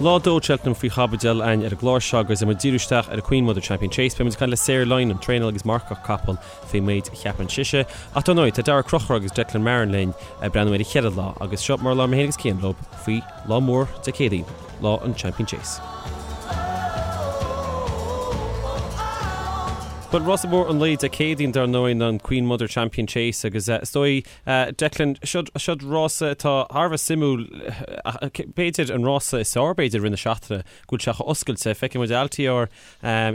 Lá 2 Cheltenham faoi chaibidil againn ar an gclár seo agus muid ag díriú isteach ar an Queen Mother Champion Chase. Beidh muid ag caint le Sarah Lynam, traenálaí agus marcach capall faoin méid a cheapann sise. Ach dar ndóigh, tá Daragh Ó Conchúir agus Declan Marron linn ag breathnú ar an cheithre lá agus seo mar a labhair mé féin agus Cian leo faoi lá mór Dé Céadaoin, lá an Champion Chase. Bhuel, rása mór an lae Dé Céadaoin dar ndóigh ná an Queen Mother Champion Chase agus is dóigh, Declan, seod rása atá thar a bheith suimiúil, b'fhéidir an rása is fearr b'fhéidir i rith na seachtaine, go bhfuil sé chomh oscailte. Feicfidh muid Altior,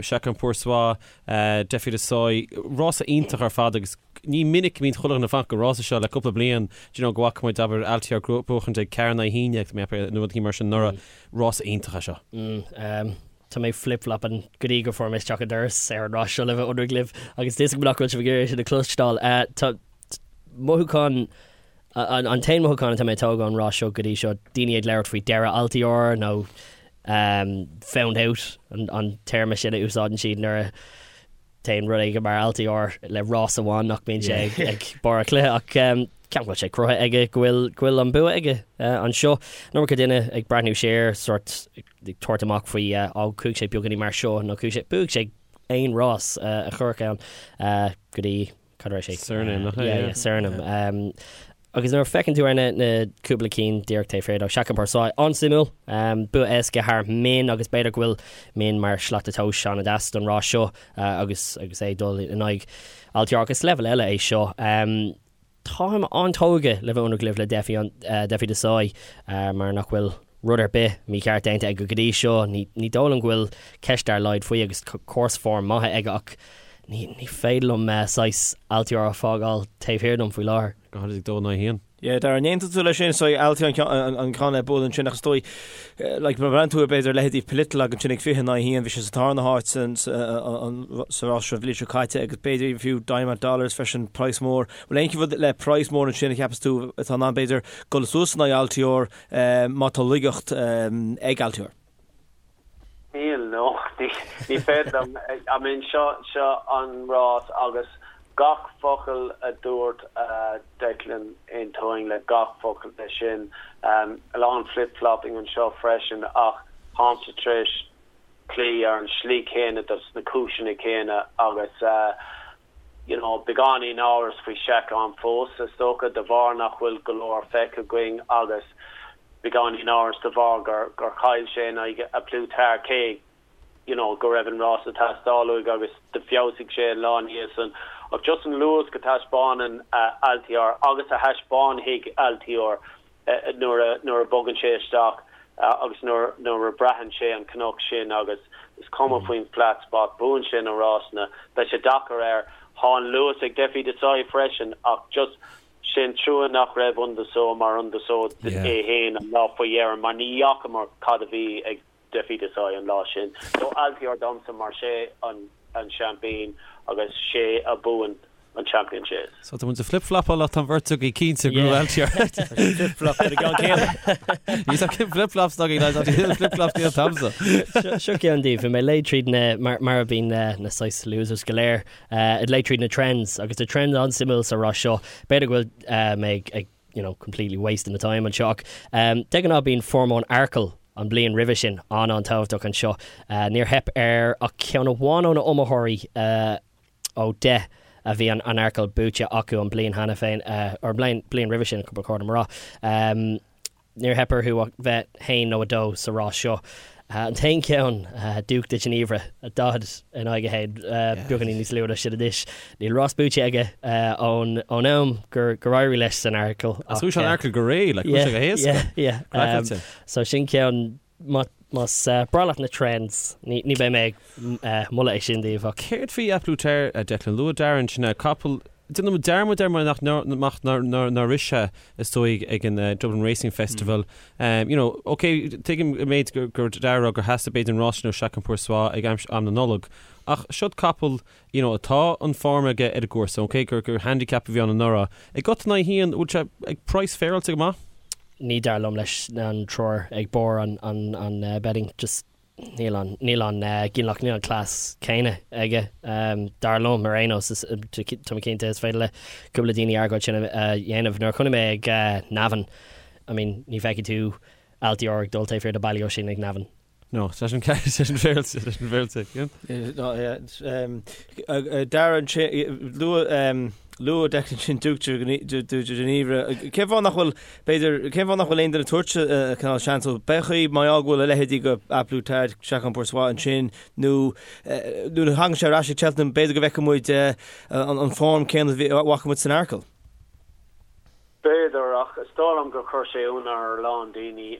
Chacun Pour Soi, Defi Du Seuil, rása iontach ar fad agus ní minic a bhíonn chuile dhuine ag fanacht don rása seo le cúpla bliain, do you know, go bhfaca muid, abair, Altior ag buachaint ag 4 in aghaidh 11, mé nó rudaí mar sin anuraidh. Rása iontach é seo. Tá mé flip-flopping go dtí go fuair mé isteach an doras ar an rás seo le bheith ionraic libh agus tá a fhios agam nach bhfuil sibh ag iarraidh sin a chloisteáil. Tá mothúchán, an t-aon mothúchán atá mé ag tógáil ón rás seo go dtí seo, daoine ag labhairt faoi deireadh Altior nó found out an téarma sin a úsáideann siad nuair a téann rud éigin mar Altior le rás amháin nach mbíonn sé ag barr a chluiche ach ceapaim go bhfuil sé cruthaithe aige go bhfuil go bhfuil an bua aige anseo. An iomarca duine ag breathnú siar sort ag tabhairt amach faoi á chuaigh sé beagáinín mar seo nó chuaigh sé bhuaigh sé aon rás a cuireadh ann go dtí cad a raibh sé? Cyrname, nach é? Yeah, yeah, Cyrname. Agus nuair a feiceann tú ar na na cúpla cinn díreach taobh thiar dó, Chacun Pour Soi, an-suimiúil, bua éasca thar Min agus b'fhéidir go bhfuil Min mar shlat tomhais an-deas don rás seo agus agus é ag dul in aghaidh Altior agus leibhéal eile é seo. Táim an-tógtha le bheith ionraic libh le Defi Defi Du Seuil mar nach bhfuil rud ar bith mícheart déanta aige go dtí seo. Ní ní dóigh liom go bhfuil ceist dár laghad faoi agus course form maith aige ach ní ní féidir liom saghas Altior a fágáil taobh thiar dom faoi láthair. Go háirid ag 2 in aghaidh 1. Yeah, Darragh, an aontaíonn tú leis sin? So Altior an ceann le bualadh ansin ach is dóigh, like, má bhreathnaíonn tú ar b'fhéidir leithéidí Politologue ansin ag 20 in aghaidh 1, bhí sé sa tarna háit sa rás seo an bhliain seo caite agus b'fhéidir fiú Diamond Dollars freisin, praghas mór. Bhfuil aon rud le praghas mór ansin a cheapas tú atá in ann b'fhéidir dul suas in aghaidh Altior má tá laigeacht ag Altior? Níl, no, ní féidir liom. I mean, seo, seo an rás agus gach focal a dúirt Declan, aontaím le gach focal de sin. A lán flip-flopping anseo freisin ach táimse tar éis cloí ar an slí chéanna dos na cúiseanna céanna agus you know, beagáinín amhras faoi Chacun fós, is dócha, de bharr nach bhfuil go leor feicthe againn agus beagáinín amhras de bharr gur gur chaill sé in aghaidh A Plus Tard cé you know go raibh an rás ag teastáil uaidh agus d'fheabhsaigh sé an lá ina dhiaidh san. Ach just an luas go taispeánann Altior agus a thaispeánfaidh Altior nuair a nuair a bogann sé isteach agus nuair nuair a braitheann sé an cnoc sin agus is cuma faoin flat spot, buann sé na rásanna. Beidh sé deacair air. Tá an luas ag Defi Du Seuil freisin ach just sin trua nach raibh Un de Sceaux mar Un de Sceaux é féin an lá faoi dheireadh mar ní fhacamar cad a bhí ag Defi Du Seuil an lá sin. So Altior domsa mar sé an an seaimpín agus sé a buann an Champion Chase. So tá muid ag flip-flopáil ach tá an bheirt againn cinnte go bhfuil Altior. Flip-flop ar an gceann céanna. Ní tá cinn flip-flops againn lads, tá flip-flops níl t'agamsa. Seo ceann daoibh, bhí mé ag léamh tríd na, mar mar a bhíonn na na saghas losers go léir, ag léamh tríd na trends agus tá trend an-suimiúil sa rás seo. B'fhéidir go bhfuil mé ag ag you know, completely wasting the time anseo ach de ghnáth bíonn form ón Arkle an bliain roimhe sin an-an-tábhachtach anseo. Níor theip ar ach ceann amháin ó na iomaitheoirí ó 10 a bhí an Arkle buaite acu an bliain cheana féin, or an bliain roimhe sin, ba chóir dom a rá. Níor theip orthu ach bheith 1 nó 2 sa rás seo. An t-aon cheann, Duc de Ginevra, 40 in aghaidh 1, beagáinín níos lú ná sin anois. Níl rás buaite aige ón am gur éirigh leis san Arkle. Ach chuaigh sé an Arkle go réidh, like, chuaigh sé go héasca. Yeah, yeah. So sin ceann, más breá leat na trends, ní beidh mé ag moladh é sin daoibh ach. Céard faoi A Plus Tard, Declan? Luaigh Darren sin capall Déanaim dearmad air mar nach nár rith sé is dóigh ag an Dublin Racing Festival. You know, ok, tuigim an méid gur Darragh gur theastaigh b'fhéidir an rás sin ó Chacun Pour Soi ag am na Nollag. Ach seod capall, you know, atá an form aige ar an gcúrsa, ok, gur gur handicap a bhí ann anuraidh. Ag 8 in aghaidh 1, bhfuil sé ag praghas féaráilte go maith? Ní dar liom leis an triúr ag barr an an betting, just Níl an, níl an ginealach, níl an cleas céanna aige, dar liom, ar aon nós. Tá mé cinnte is féidir le cúpla daoine argóint sin a dhéanamh. Nuair a chonaic mé ag Navan, I mean, ní fheicfidh tú Altior ag dul taobh thiar de Ballyoisín ag Navan. No, sé sin sé sin féilte, sé sin féilte. Darragh ansin, luaigh Declan sin Duc de Ginevra. Cén fáth nach bhfuil, b'fhéidir, cén fáth nach bhfuil aon duine ag tabhairt cineál seans dó? B'é chaoi mar gheall go bhfuil a leithéidí de A Plus Tard, Chacun Pour Soi ansin, nó nuair a thagann sé ar ais ag Cheltenham, b'fhéidir go bhfeicfidh muid an form céanna a bhfaca muid san Arkle. B'fhéidir, ach is dóigh liom gur chuir sé ionadh ar a lán daoine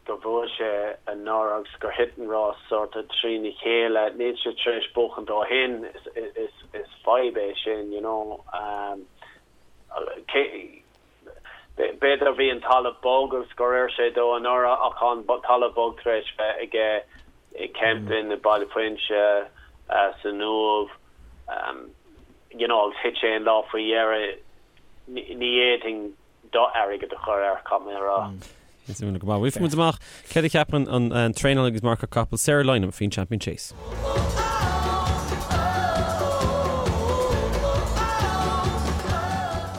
gur bhuaigh sé anuraidh agus gur thit an rás sórt trína chéile. Níl sé tar éis buachan ó shin. Is fadhb é sin, you know. B'fhéidir bhí an talamh bog agus gur oir sé dó anuraidh ach tá an talamh bog tar éis bheith aige i Kempton, i Baile Phuinse, san Uaimh, you know, agus thit sé an lá faoi dheireadh. Ní fhéadfainn d'airgead a chur air, caithfidh mé a rá. Is iontach go maith. Bhfuil muid amach céard a cheapann an traenálaí agus marcóir capall Sarah Lynam faoin Champion Chase.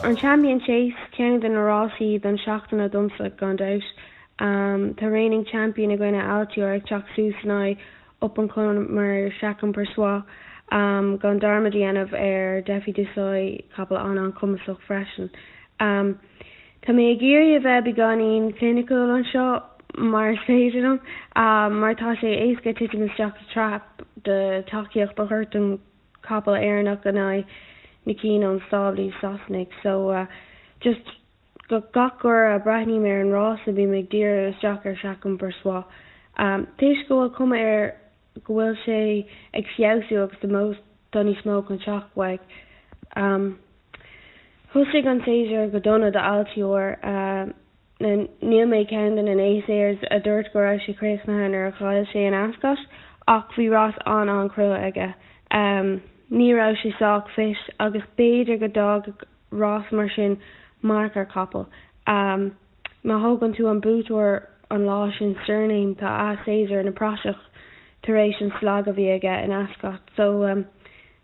An Champion Chase, ceann de na rásaí don seachtaine domsa, gan dabht. Tá reigning champion againne Altior ag teacht suas in aghaidh up and comer Chacun Pour Soi, gan dearmad a dhéanamh ar Defi Du Seuil, capall an-an-chumasach freisin. Tá mé ag iarraidh a bheith beagáinín cliniciúil anseo mar is féidir liom, mar tá sé éasca titim isteach sa trap de tacaíocht a thabhairt don chapall Éireannach in aghaidh na cinn ón stáblaí Sasanaigh. So, just gach uair a breathnaím ar an rása bím ag díriú isteach ar Chacun Pour Soi. Toisc go bhfuil cuma air go bhfuil sé ag feabhsú agus tá níos mó chun teacht uaidh. Thosaigh an séasúr go dona do Altior. Níl mé ceann de na naysayers a dúirt go raibh sé críochnaithe nuair a chaill sé in Ascot ach bhí rás an-an-chrua aige. Ní raibh sé sách fit agus b'fhéidir go d'fhágfadh rás mar sin marc ar chapall. Má thógann tú an buaiteoir an lá sin Cyrname tá a séasúr ina praiseach tar éis an slag a bhí aige in Ascot. So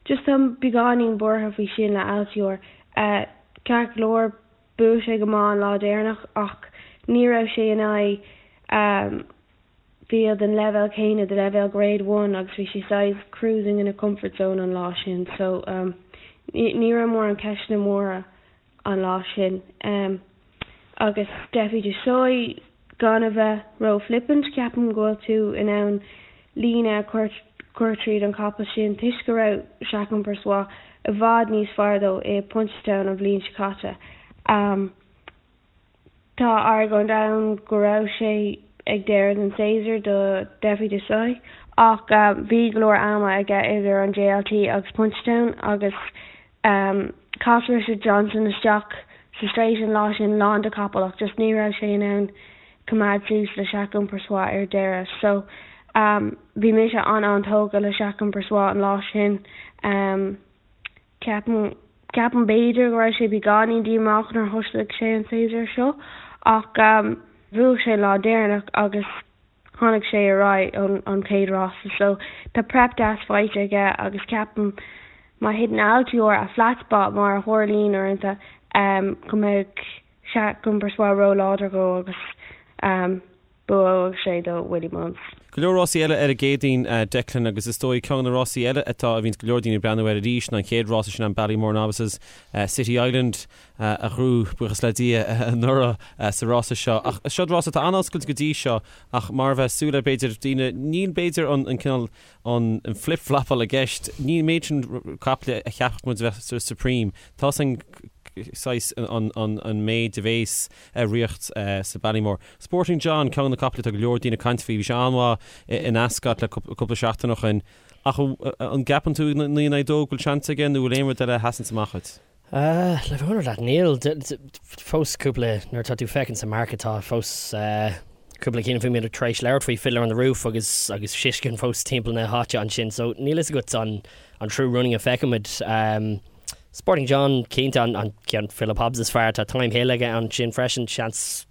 just táim beagáinín buartha faoi sin le Altior. Ceart go leor bhuaigh sé go maith an lá deireanach ach ní raibh sé in aghaidh field den leibhéal céanna, de leibhéal Grade One agus bhí sé saghas cruising in a comfort zone an lá sin so ní raibh mórán ceisteanna móra an lá sin. Agus Defi Du Seuil, gan a bheith ró-flippant, ceapaim go bhfuil tú in ann líne a chur tríd an capall sin toisc go raibh Chacun Pour Soi i bhfad níos fearr dó i Punchestown an bhliain seo caite. Tá argóint ann go raibh sé ag deireadh den séasúr do Defi Du Seuil ach bhí go leor ama aige idir an JLT agus Punchestown agus chas Richard Johnson isteach sa straight an lá sin lán de capaill ach just ní raibh sé in ann coimeád suas le Chacun Pour Soi ar deireadh. So bhí mise an-an-tógtha le Chacun Pour Soi an lá sin. Ceapaim, ceapaim b'fhéidir go raibh sé beagáinín díomách nuair a thosaigh sé an séasúr seo ach bhuaigh sé an lá deireanach agus tháinig sé ar aghaidh ón an chéad rása so tá prep deas faighte aige agus ceapaim má thiteann Altior a flat spot mar a tharlaíonn uaireanta go mbeidh Chacun Pour Soi ró-láidir dhó agus buafaidh sé do Willie Mullins. Go leor rásaí eile ar an gCéadaoin, Declan, agus is dóigh ceann de na rásaí eile atá a bhíonns go leor daoine ag breathnú air arís ná an chéad rása sin an Ballymore Novices, City Island a ghnóthaigh, buíochas le Dia, anuraidh sa rása seo. Ach seod rása atá an-oscailte go dtí seo ach mar a bheadh súil le b'fhéidir daoine, níl b'fhéidir an cineál an flip-flapáil i gceist, níl an méid sin caiple a cheapfadh muid a bheith sa Supreme. Tá san saghas an méid a bhéas ar ríocht sa Ballymore. Sporting John, ceann de na caiple atá go leor daoine ag caint faoi, bhí sé an-mhaith in Ascot le cúpla seachtain ó shin. Ach an gceapann tú 9 in aghaidh 2 go bhfuil seans aige nó bhfuil aon rud eile a sheasanns amach dhuit? Le bheith ionraic leat, níl. Fós cúpla, nuair atá tú féachaint sa market tá fós cúpla cinn faoi muid tar éis labhairt faoi Fiddler on the Roof agus agus Shishkin fós timpeall na háite ansin so níl fhios agat an an true running a feicfimid. Sporting John cinnte an ceann Philip Hobbs is fearr tá Thyme Hill aige ansin freisin seans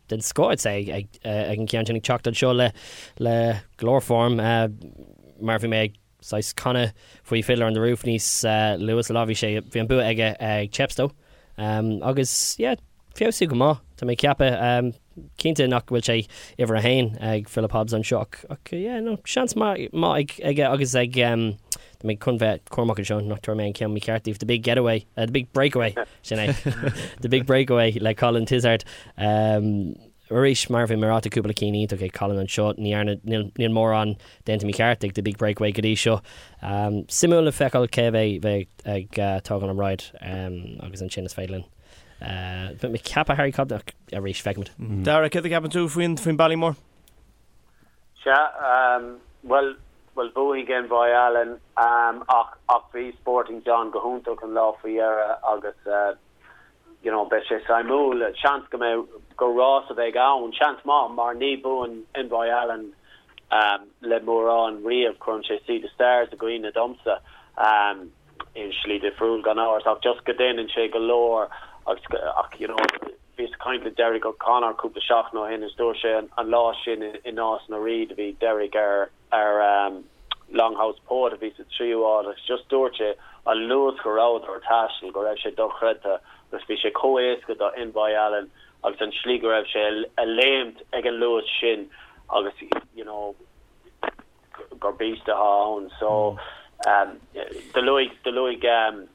den scoth I'd say ag an gceann sin ag teacht anseo le le go leor form mar bhí mé ag saghas canadh faoi Fiddler on the Roof níos luaithe sa lá bhí sé bhí an bua aige ag Chepstow agus yeah feabhsú go maith tá mé ag ceapadh. Cinnte nach bhfuil sé uimhir a haon ag Philip Hobbs anseo ach, ach yeah, no, seans maith ag, aige agus ag, tá mé chun bheith cúramach anseo nach dtabharfaidh mé an ceann mícheart daoibh, The Big Getaway, The Big Breakaway, sin é, The Big Breakaway le Colin Tizzard. Arís, mar a bhí mé ag rá, tá cúpla cinn iontach ag Colin anseo, ní dhearna, níl, níl mórán déanta mícheart ag The Big Breakaway go dtí seo. Suimiúil le feiceáil cé a bheidh, bheidh ag tógáil an ride agus ansin is féidir linn Bheadh mé ag ceapadh Harry Cobden ach arís, feicfimid. Dara, céard a cheapann tú faoin faoin Ballymore? Sea, bhuel, bhuel bhuaigh Envoi Allen ach ach bhí Sporting John go hiontach an lá faoi dheireadh agus you know beidh sé suimiúil. Seans go mbeidh, gur rás a bheidh ann, seans maith mar ní buann Envoi Allen le mórán riamh, cuireann sé Sea The Stars i gcuimhne domsa. i slí difriúil gan amhras ach just go déanann sé go leor agus ach you know bhíos ag caint le Derek O'Connor cúpla seachtain ó shin is dúirt sé an lá sin i Nás na Rí do bhí Derek ar ar um, Longhouse Poet a bhí sa tríú áit agus just dúirt sé an luas go rabhadar ag taisteal go raibh sé dochreidte agus bhí sé chomh éasca do Envoi Allen agus an slí go raibh sé ag léimt ag an luas sin agus you know gur beast atá ann. So do luaigh do luaigh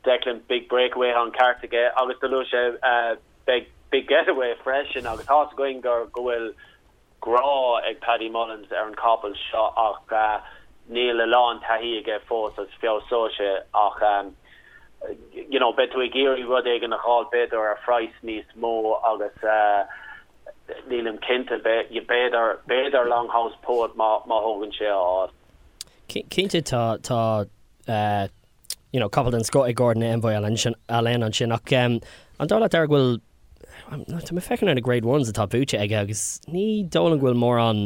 Declan Big Breakaway tá an ceart aige agus do luaigh sé Big Big Getaway freisin agus tá's againn gur go bhfuil grá ag Paddy Mullins ar an capall seo ach níl a lán taithí aige fós agus feabhsóidh sé ach you know beidh tú ag iarraidh rud éigin a dh'fháil b'fhéidir ar phraghas níos mó agus Nílim cinnte. B'fhéidir, b'fhéidir Longhouse Poet má thógann sé a áit. Cinnte tá, tá you know capall den scoth ag Gordon Envoi Allen ansin ach an dóigh leat Dara go bhfuil, tá mé ag féachaint ar na Grade Ones atá buaite aige agus ní dóigh liom go bhfuil mórán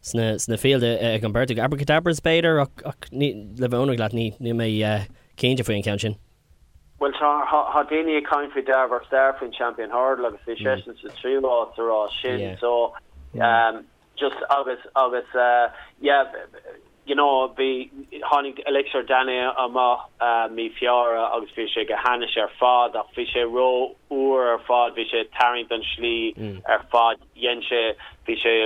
sna, sna field ag an bheirt acu. Abracadabras b'fhéidir ach, ach ní, le bheith ionraic leat ní, níl mé cinnte faoi an ceann sin. Bhuel tá, tá daoine ag caint faoi Darver Star faoin Champion Hurdle agus bhí seisean sa tríú háit sa rás sin so just agus agus yeah you know bhí tháinig Elixir D'Ainay amach mí Feabhra agus bhí sé go hainnis ar fad ach bhí sé ró úr ar fad bhí sé ag tarraingt an slí ar fad dhein sé bhí sé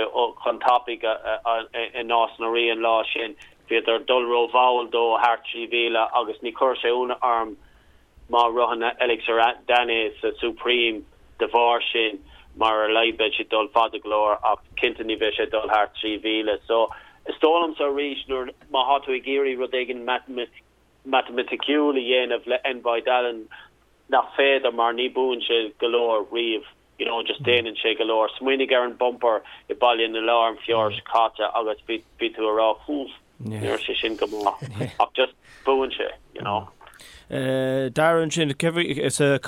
chun tapaidh i Nás na Rí an lá sin Bhíodar ag dul ró-mhall dó thart 3,000 agus ní chuirfeadh sé ionadh orm má ritheann Elixir D'Ainay sa Supreme de bharr sin mar ar a laghad beidh sé ag dul fada go leor ach cinnte ní bheidh sé ag dul thart 3,000. So is dóigh liomsa arís nuair má thá tú ag iarraidh rud éigin matamaiticiúil a dhéanamh le Envoi Allen nach féidir mar ní buann sé go leor riamh you know just déanann sé go leor. Smaoinigh ar an bumper i Baile na Lobhar an Feabhra seo caite agus bhí bhí tú a rá húf ní raibh sé sin go maith ach just buann sé you know. Dara ansin sa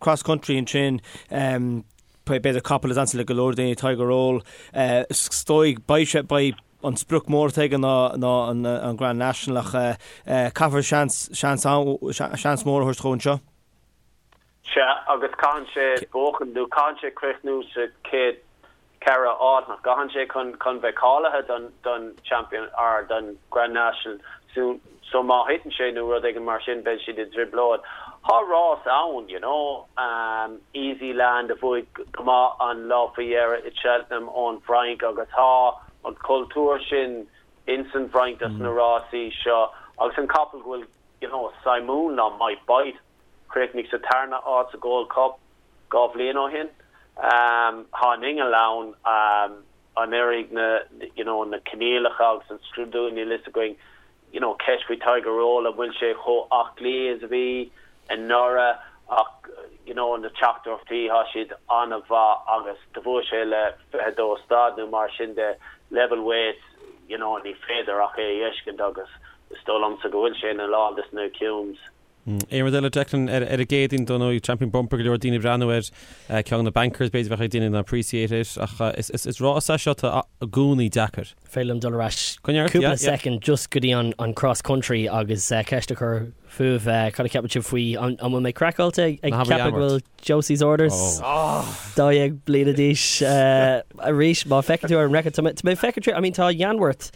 cross country ansin b'fhéidir capall is ansa le go leor daoine Tiger Roll is dóigh beidh sé beidh an sprioc mór atá aige ná ná an an Grand National ach caithfear seans seans seans mór a thabhairt dhó anseo. Sea, agus caitheann sé buachan, nó caitheann sé críochnú sa chéad cheithre áit, nach gcaitheann sé, chun chun bheith cáilithe don don Champion, or don Grand National. So so má thiteann sé nó rud éigin mar sin, beidh siad i dtrioblóid. Tá rás ann, you know, Easy Land a bhuaigh go maith an lá faoi dheireadh i Cheltenham ón bhFrainc agus tá an cultúr sin ins an bhFrainc dos na rásaí seo agus an capall go bhfuil, you know, suimiúil ná Might Bite. Chríochnaigh sa tarna áit sa Gold Cup 2 bhliain ó shin. Tá an inneall ann, an oirfidh na you know na coinníollacha agus an scrúdú, níl fhios againn. You know ceist faoi Tiger Roll, an bhfuil sé chomh aclaí is a bhí anuraidh ach you know na teachtaireachtaí, tá siad an-mhaith agus do bhuaigh sé le 22 stad nó mar sin de, level weights, you know ní féidir ach é a fheiscint agus is dóigh liomsa go bhfuil sé ina lán des na cumes. Aon rud eile, Declan, ar an gCéadaoin, dar ndóigh, Champion Bumper, go leor daoine ag breathnú air, ceann de na bankers, b'fhéidir bheadh ag daoine ná Appreciate It, ach is rás é seo atá i gcónaí deacair. Féidir liom dul ar ais cúpla soicind just go dtí an cross country agus ceist a chur fúibh, cad a cheapann sibh faoi, an bhfuil mé craiceáilte ag ceapadh go bhfuil Josie's Orders 12 bliana d'aois arís, má feiceann tú ar an record, tá mé ag féachaint, I mean tá Yanworth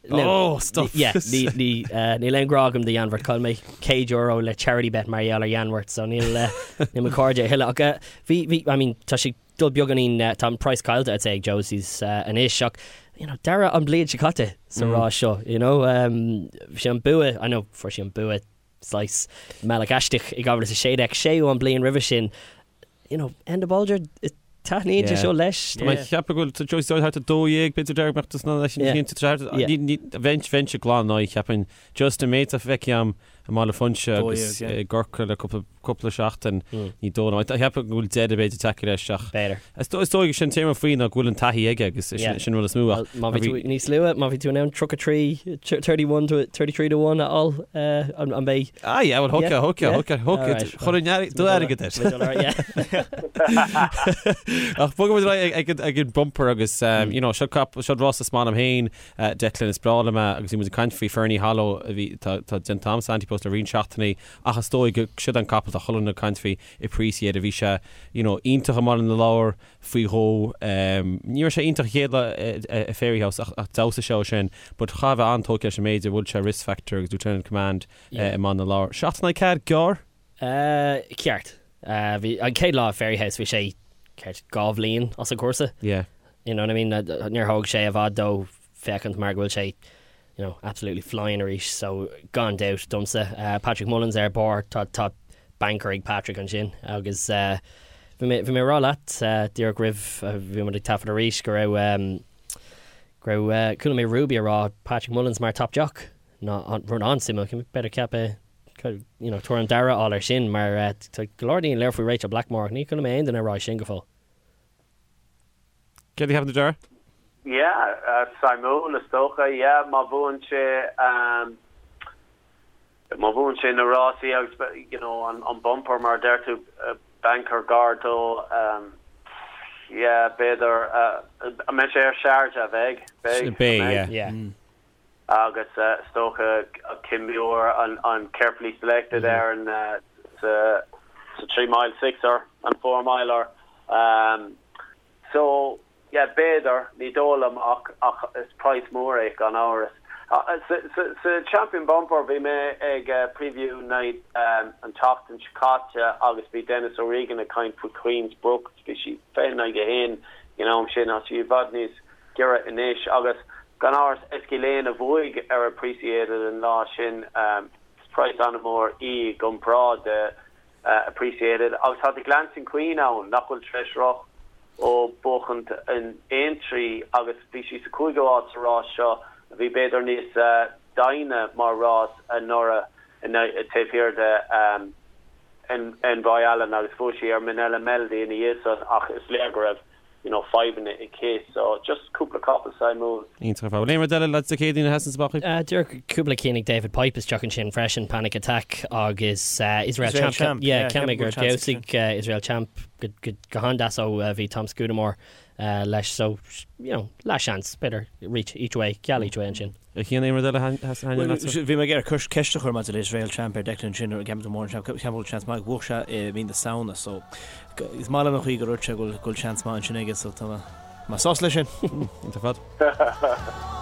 Oh, stop. Yeah, ní, ní, eh, níl aon ghrá agam do Yanworth. Chaill mé €100 le charity bet mar gheall ar Yanworth, so níl, eh, níl mo chairde a thuilleadh. Ach, eh, bhí, bhí, I mean, tá sé dul beagáinín, tá an price caillte I'd say ag Josie's anois ach you know dara an bhliain seo caite sa rás seo, you know. Bhí sé an bua, I know fuair sé an bua saghas i mbealach aisteach i 2016, séú an bliain roimhe sin, you know, Enda Bolger, taitníonn sé seo leis. Tá mé ag ceapadh go bhfuil Josie Doyle thart ar 12, b'fhéidir dearg mbeadh tusa leis an chinnte bheinnse glan in aghaidh cheapfainn just an méid atá feicthe agam i mBaile Phúinse agus i gCorcaigh le cúpla seachtain ní dóigh liom. Cheapfainn go bhfuil deireadh b'fhéidir tagtha leis ach B'fhéidir. is dóigh sin téama faoi ná go bhfuil an taithí aige agus sin rud is mó ach Má bhí tú níos luaithe, má bhí tú in ann 33, 31 to 33 to 1 a fháil, an mbeidh? Ah yeah, well thógfá, thógfá, thógfá, thógfá, chuirfinn do airgead air. Ach bogfaidh muid ar aghaidh ag an bumper agus you know seo seo rás is maith liom féin Declan is breá liom é agus bhí muid ag caint faoi Ferny Hollow a bhí, tá déanta agam sa Ante-Post le roinnt seachtainí ach is dóigh go siod an capall tá chuile dhuine ag caint faoi Appreciated bhí sé you know iontach i mBaile na Lobhar faoi dhó ní raibh sé iontach an chéad lá i Fairyhouse ach ach d'fheabhsaigh sé ó sin but chaithfeá a bheith an-tógtha leis an méid a bhuail sé Risk Factor agus Lieutenant Command i mBaile na Lobhar. 7 in aghaidh 4 gearr? Ceart. Bhí an chéad lá i Fairyhouse bhí sé ceart 2 bhliain as an chúrsa. Yeah. You know what I mean? Níor thóg sé i bhfad dó féachaint mar go bhfuil sé you know, absolutely flying arís so gan dabht domsa. Patrick Mullins ar barr, tá tá banker ag Patrick ansin agus bhí mé bhí mé ag rá leat díreach roimh bhí muid ag taifead arís go raibh go raibh chuala mé Ruby ag rá Patrick Mullins mar top jock ná rud an-suimiúil, b'fhéidir ceapadh you know, tuairim Dara a fháil air sin mar tá go leor daoine ag labhairt faoi Rachel Blackmore ach ní chuala mé aon duine ag rá sin go fóill. Céard a cheapann tú Dara? Yeah, suimiúil is dócha, yeah, má bhuann sé má bhuann sé na rásaí agus you know an bumper mar a deir tú banker gar dó yeah b'fhéidir an mbeidh sé ar Sharjah bheidh beidh beidh yeah. Agus is dócha Kim Muir an Carefully Selected ar an sa 3 mile sixer, an 4 miler. So, yeah, b'fhéidir, ní dóigh liom ach ach is praghas mór é gan amhras. Sa Champion Bumper bhí mé ag preview night an tseachtain seo caite agus bhí Denis O'Regan ag caint faoi Queen's Brook, bhí sí 20 in aghaidh a haon ag an am sin, tá sí i bhfad níos giorra anois agus gan amhras Eskylane a bhuaigh ar Appreciated an lá sin. Is praghas an-mhór í i gcomparáid de Appreciated agus tá The Glancing Queen ann nach bhfuil tar éis rith ó buachaint in Aintree agus bhí sí sa cúigiú háit sa rás seo a bhí b'fhéidir níos doimhne mar rás anuraidh taobh thiar de Envoi Allen agus bhuaigh sí ar Minella Melody ina dhiaidh san ach is léir go raibh you know, fadhbanna aici so just cúpla capall suimiúil. Iontach ar fad. Bhfuil aon rud eile lads Dé Céadaoin a sheasann amach chuig? Díreach cúpla cinn ag David Pipe isteach ansin freisin, Panic Attack agus Israel Champ. Champ, yeah, ceap mé gur d'fheabhsaigh Israel Champ go go han-deas ó bhí Tom Scudamore leis so, you know, leath-seans, b'fhéidir reach each way, geall each way ansin. A Chian, aon rud eile a thaitníonn leatsa? Bhí mé ag iarraidh ceist a chur maidir le Israel Champ ar Declan ansin, ceapaim go mór ceapaim go bhfuil seans maith, bhuaigh sé i mí na Samhna so is maith liom an chaoi gur dhúirt sé go bhfuil seans maith ansin aige so tá mé sásta leis sin. Iontach ar fad.